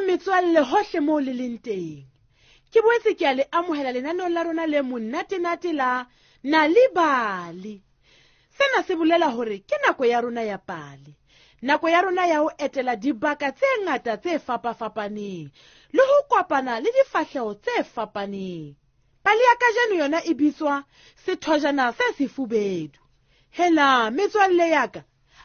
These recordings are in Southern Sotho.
Dumelang metswalle hohle moo le leng teng. Ke boetse ke a le amohela lenaneong la rona le monnatenate la Nal'ibali. Sena se bolela hore ke nako ya rona ya pale. Nako ya rona ya ho etela dibaka tse ngata tse fapafapaneng le ho kopana le difahleho tse fapaneng. Pale ya kajeno yona e bitswa Sethojana se Sefubedu. Hela metswalle ya ka,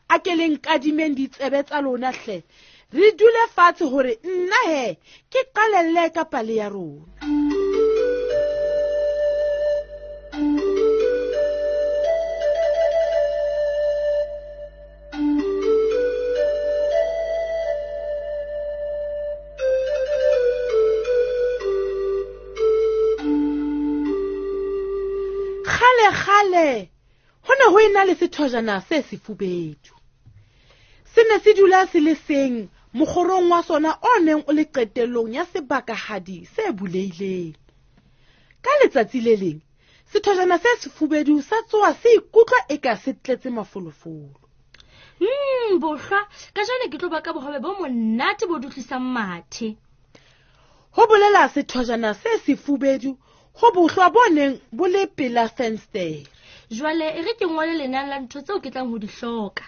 a ke le nkadimeng ditsebe tsa lona hle. Re dule fatshe hore nna he ke qalelle ka pale ya rona. Kgale kgale ho ne ho ena le sethojana se sefubedu. Se ne se dula se le seng mokgorong wa sona o neng o le qetellong ya sebakahadi se bulehileng. Ka letsatsi le leng, sethojana se sefubedu sa tsoha se ikutlwa eka se tletse mafolofolo. Bohlwa, kajeno ke tlo baka bohobe bo monate bo dutlisang mathe. Ho bolela sethojana se sefubedu ho bohlwa bo neng bo le pela fensetere. Jwale e re ke ngole lenane la ntho tseo ke tlang ho di hloka.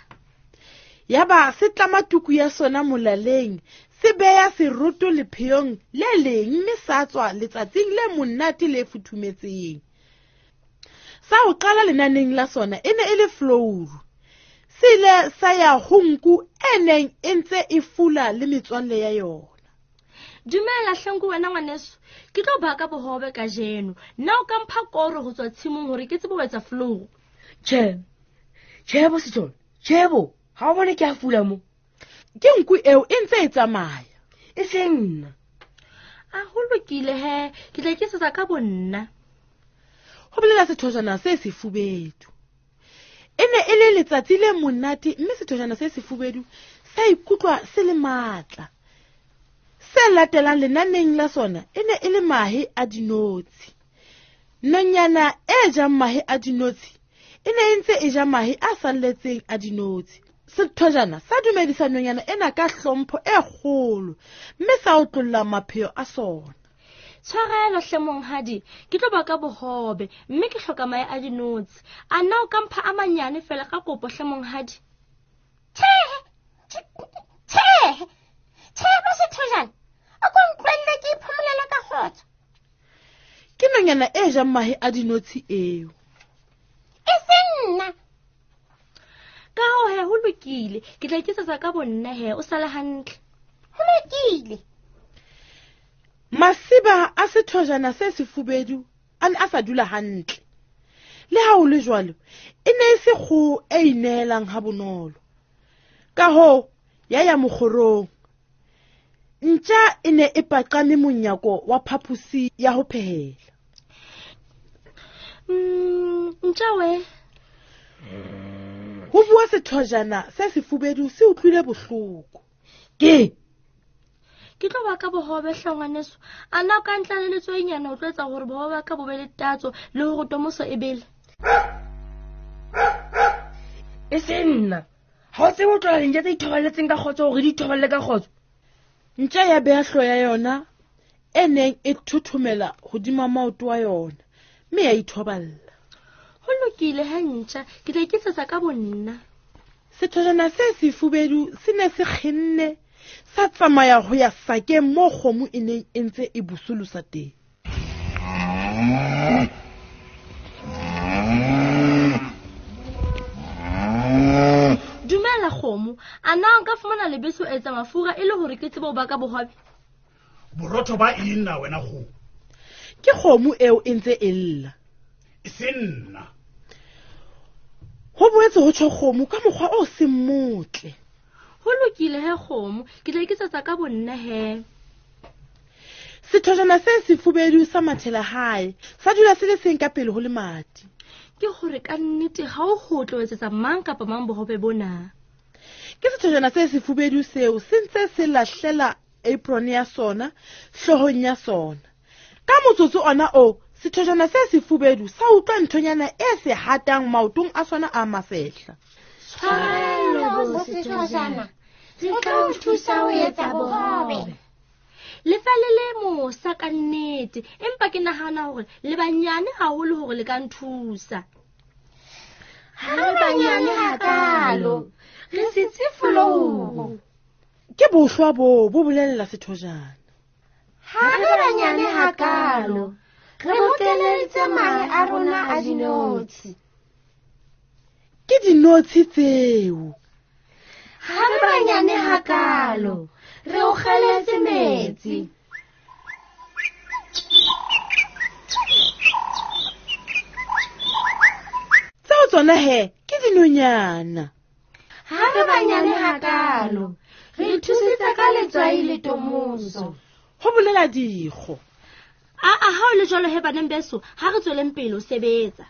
Yaba se tlama tuku ya sona molaleng, se beya seroto lepheong le leng mme sa tswa letsatsing le monate le futhumetseng. Sa ho qala lenaneng la sona e ne e le flouru. Se ile sa ya ho nku e neng e ntse e fula le metswalle ya yona. Dumela hlenku wena ngwaneso, ke tlo baka bohobe kajeno. Nna o ka mpha koro ho tswa tshimong hore ke tsebe ho etsa flouru? Tjhe, tjhe bo Sethole, tjhe bo, ha o bone ke a fula mo. Ke nku eo e ntse e tsamaya. E seng nna. A ho lokile he, ke tla iketsetsa ka bonna. Ho bolela sethojana se sefubedu. E ne e le letsatsi le monate mme sethojana se sefubedu sa ikutlwa se le matla. Se latelang lenaneng la sona e ne e le mahe a dinotshi. Nonyana e jang mahe a dinotshi e ne e ntse e ja mahe a salletseng a dinotshi. Sethojana sa dumedisa nonyana ena ka hlompho e kgolo mme sa otlolla mapheo a sona. Tshwarelo hle monghadi, ke tlo baka bohobe mme ke hloka mahe a dinotshi. A nna o ka mpha a manyane fela ka kopo hle monghadi? Tjhe, tjhe, tjhe bo sethojana, o ko ntlwelle ke iphomolele ka kgotso. Ke nonyana e jang mahe a dinotshi eo. E seng nna. Ka hoo he, ho lokile, ke tla iketsetsa ka bonna he, o sale hantle. Ho lokile. Masiba a sethojana se sefubedu a ne a sa dula hantle. Le ha ho le jwalo, e ne e se kgoho e ineelang ha bonolo. Ka hoo, ya ya mokgorong. Ntja e ne e paqame monyako wa phaposi ya ho phehela. Ntja we. Ho bua sethojana se sefubedu se utlwile bohloko. Ke? Ke tlo baka bohobe hle ngwaneso. A na o ka ntla le letswainyana o tlo etsa hore bohobe ba ka bo be le tatso le hore tomoso e bele? E se nna. Ha o tsebe ho tlola dintja tse ithobaletseng ka kgotso hore di ithoballe ka kgotso. Ntja ya beha hlooho ya yona e neng e thothomela hodima maoto a yona mme ya ithoballa. Ho lokile he ntja, ke tla iketsetsa ka bonna. Sethojana se sefubedu se ne se kgenne sa tsamaya ho ya sakeng moo kgomo e neng e ntse e busolosa teng. Dumela kgomo, a na nka fumana lebese ho etsa mafura e le hore ke tsebe ho baka bohobe? Borotho ba eng na wena kgomo? Ke kgomo eo e ntse e lla. E se nna. Ho boetse ho tjho kgomo ka mokgwa o seng motle. Ho lokile he kgomo, ke tla iketsetsa ka bonna he. Sethojana se sefubedu sa mathela hae, sa dula se le seng ka pele ho lemati. Ke hore ka nnete ha o ho tlo etsetsa mang kapa mang bohobe bona. Ke sethojana se sefubedu seo se ntse se lahlela apron ya sona hloohong ya sona. Ka motsotso ona o, sethojana se sefubedu sa utlwa nthonyana e se hatang maotong a sona a masehla. Tshwarelo bo sethojana, re tla o thusa ho etsa bohobe. Le fa le le mosa ka nnete, empa ke nahana hore le banyane haholo hore le ka nthusa. Ha re banyane hakalo, re sitse folouru. Ke bohlwa boo bo bolella sethojana. Ha re banyane hakalo, re bokeleditse mahe a rona a dinotshi. Ke dinotshi tseo. Ha re banyane hakalo, re o kgeletse metsi. Tseo tsona he ke dinonyana. Ha re banyane hakalo, re ithusitse ka letswai le tomoso. Ho bolela dikgo. Aa, ha o le jwalo he baneng beso, ha re tsweleng pele ho sebetsa.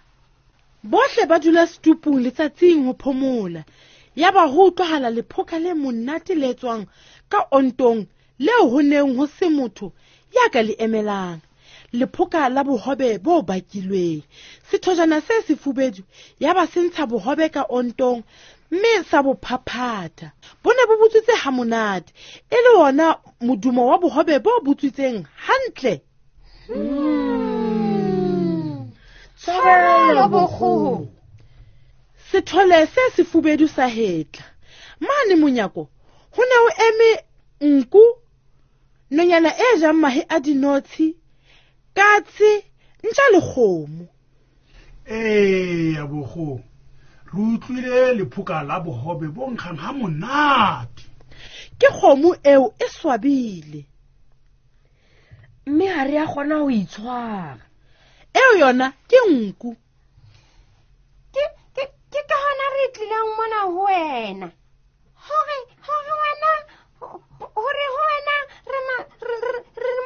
Bohle ba dula setupung letsatsing ho phomola. Yaba ho utlwahala lephoka le monate le tswang ka ontong leo ho neng ho se motho ya ka le emelang. Lephoka la bohobe bo bakilweng. Sethojana se sefubedu yaba se ntsha bohobe ka ontong mme sa bo phaphatha. Bo ne bo butswitse ha monate, e le wona modumo wa bohobe bo butswitseng hantle. Tshwarelo bokgoho. Sethole se sefubedu sa hetla. Mane monyako ho ne ho eme nku, nonyana e jang mahe a dinotshi, katse, ntja le kgomo. Eya bokgoho, re utlwile lephoka la bohobe bo nkgang ha monate. Ke kgomo eo e swabile. Mme ha re a kgona ho itshwara. Eo yona ke nku. Ke ka hona re tlileng mona ho wena. Hore wena hore ho wena re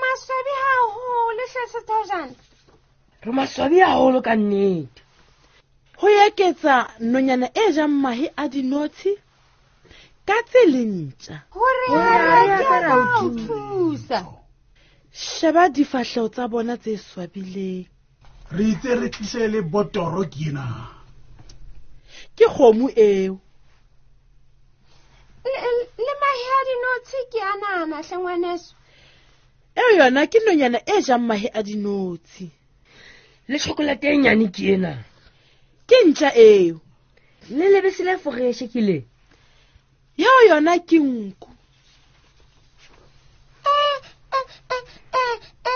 maswabi haholo hle sethojana. Re maswabi haholo ka nnete. Ho eketsa nonyana e jang mahe a dinotshi, katse le ntja. Hore ha re ka ra o thusa. Sheba difahleho tsa bona tse swabileng. Re itse re tlise le botoro ke ena. Ke kgomo eo. Le mahe a dinotshi ke a nana hle ngwaneso. Eo yona ke nonyana e jang mahe a dinotshi. Le chocolate e nyane ke ena. Ke ntja eo. Le lebese le foreshe ke le. Eo yona ke nku.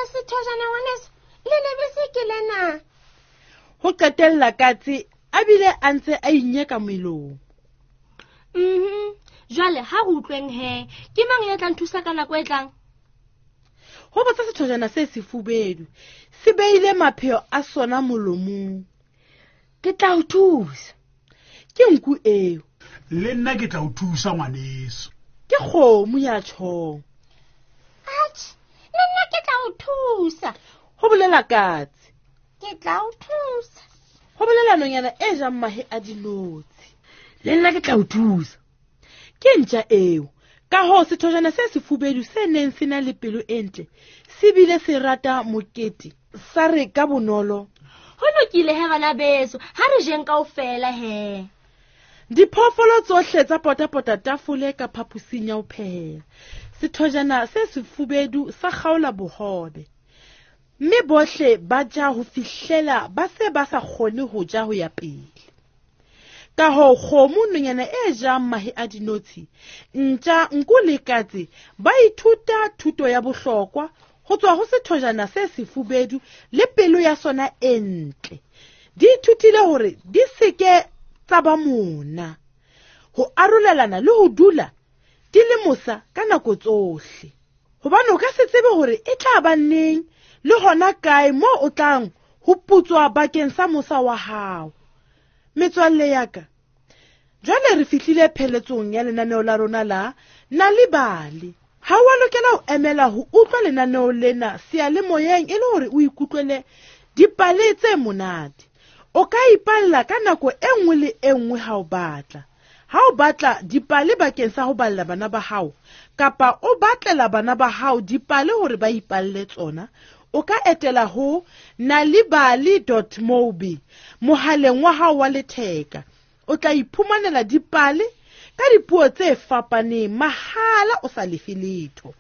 Sethojana ngwaneso, le lebese ke lena. Ho qetella katse a bile a ntse a inyeka melomo. Jwale ha re utlweng he, ke mang ya tla nthusa ka nako e tlang? Ho botsa sethojana se sefubedu, se beile mapheo a sona molomong. Ke tla o thusa. Ke nku eo. Le nna ke tla o thusa ngwaneso. Ke kgomo ya tjhong. Atjhe, le nna ke tla o thusa. Ho bolela katse. Ke tla o thusa. Ho bolela nonyana e jang mahe a dinotshi. Le nna ke tla o thusa. Ke ntja eo. Ka hoo sethojana se sefubedu se neng se na le pelo e ntle, se bile se rata mokete, sa re ka bonolo. Ho lokile he bana beso, ha re jeng kaofela he. Diphoofolo tsohle tsa potapota tafole ka phaposing ya ho phehela. Sethojana se sefubedu sa kgaola bohobe. Mme bohle ba ja ho fihlela ba se ba sa kgone ho ja ho ya pele. Ka hoo kgomo, nonyana e jang mahe a dinotshi, ntja, nku le katse ba ithuta thuto ya bohlokwa ho tswa ho sethojana se sefubedu le pelo ya sona e ntle. Di ithutile hore di seke tsa ba mona, ho arolelana le ho dula di le mosa ka nako tsohle. Hobane o ka se tsebe hore e tla ba neng le hona kae moo o tlang ho putswa bakeng sa mosa wa hao. Metswalle ya ka, jwale re fihlile pheletsong ya lenaneo la rona la Nal'ibali. Ha wa lokela ho emela ho utlwa lenaneo lena seyalemoyeng e le hore o ikutlwele dipale tse monate. O ka ipalla ka nako e nngwe le e nngwe ha o batla. Ha o batla dipale bakeng sa ho balla bana ba hao, kapa o batlela bana ba hao dipale hore ba ipalle tsona, o ka etela ho nalibali.mobi mohaleng wa hao wa letheka. O tla iphumanela dipale ka dipuo tse fapaneng mahala o sa lefe letho.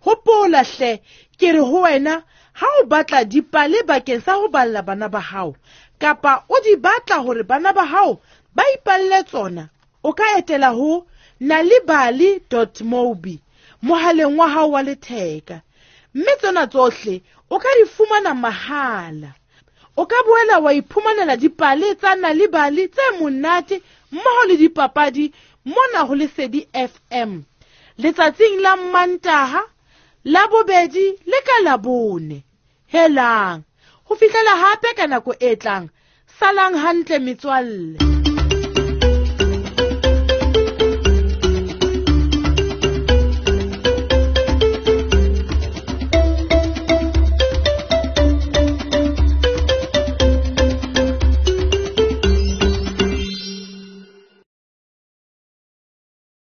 Hopola hle, ke re ho wena ha o batla dipale bakeng sa ho balla bana ba hao kapa o di batla hore bana ba hao ba ipalle tsona, o ka etela ho nalibali.mobi mohaleng wa hao wa letheka, mme tsena tsohle o ka di fumana mahala. O ka boela wa iphumanela dipale tsa Nalibali tse monate mmoho le dipapadi mona ho Lesedi FM letsatsing la Mantaha, la bobedi le ka Labone. Helang, ho fihlela hape ka nako e tlang, salang hantle metswalle.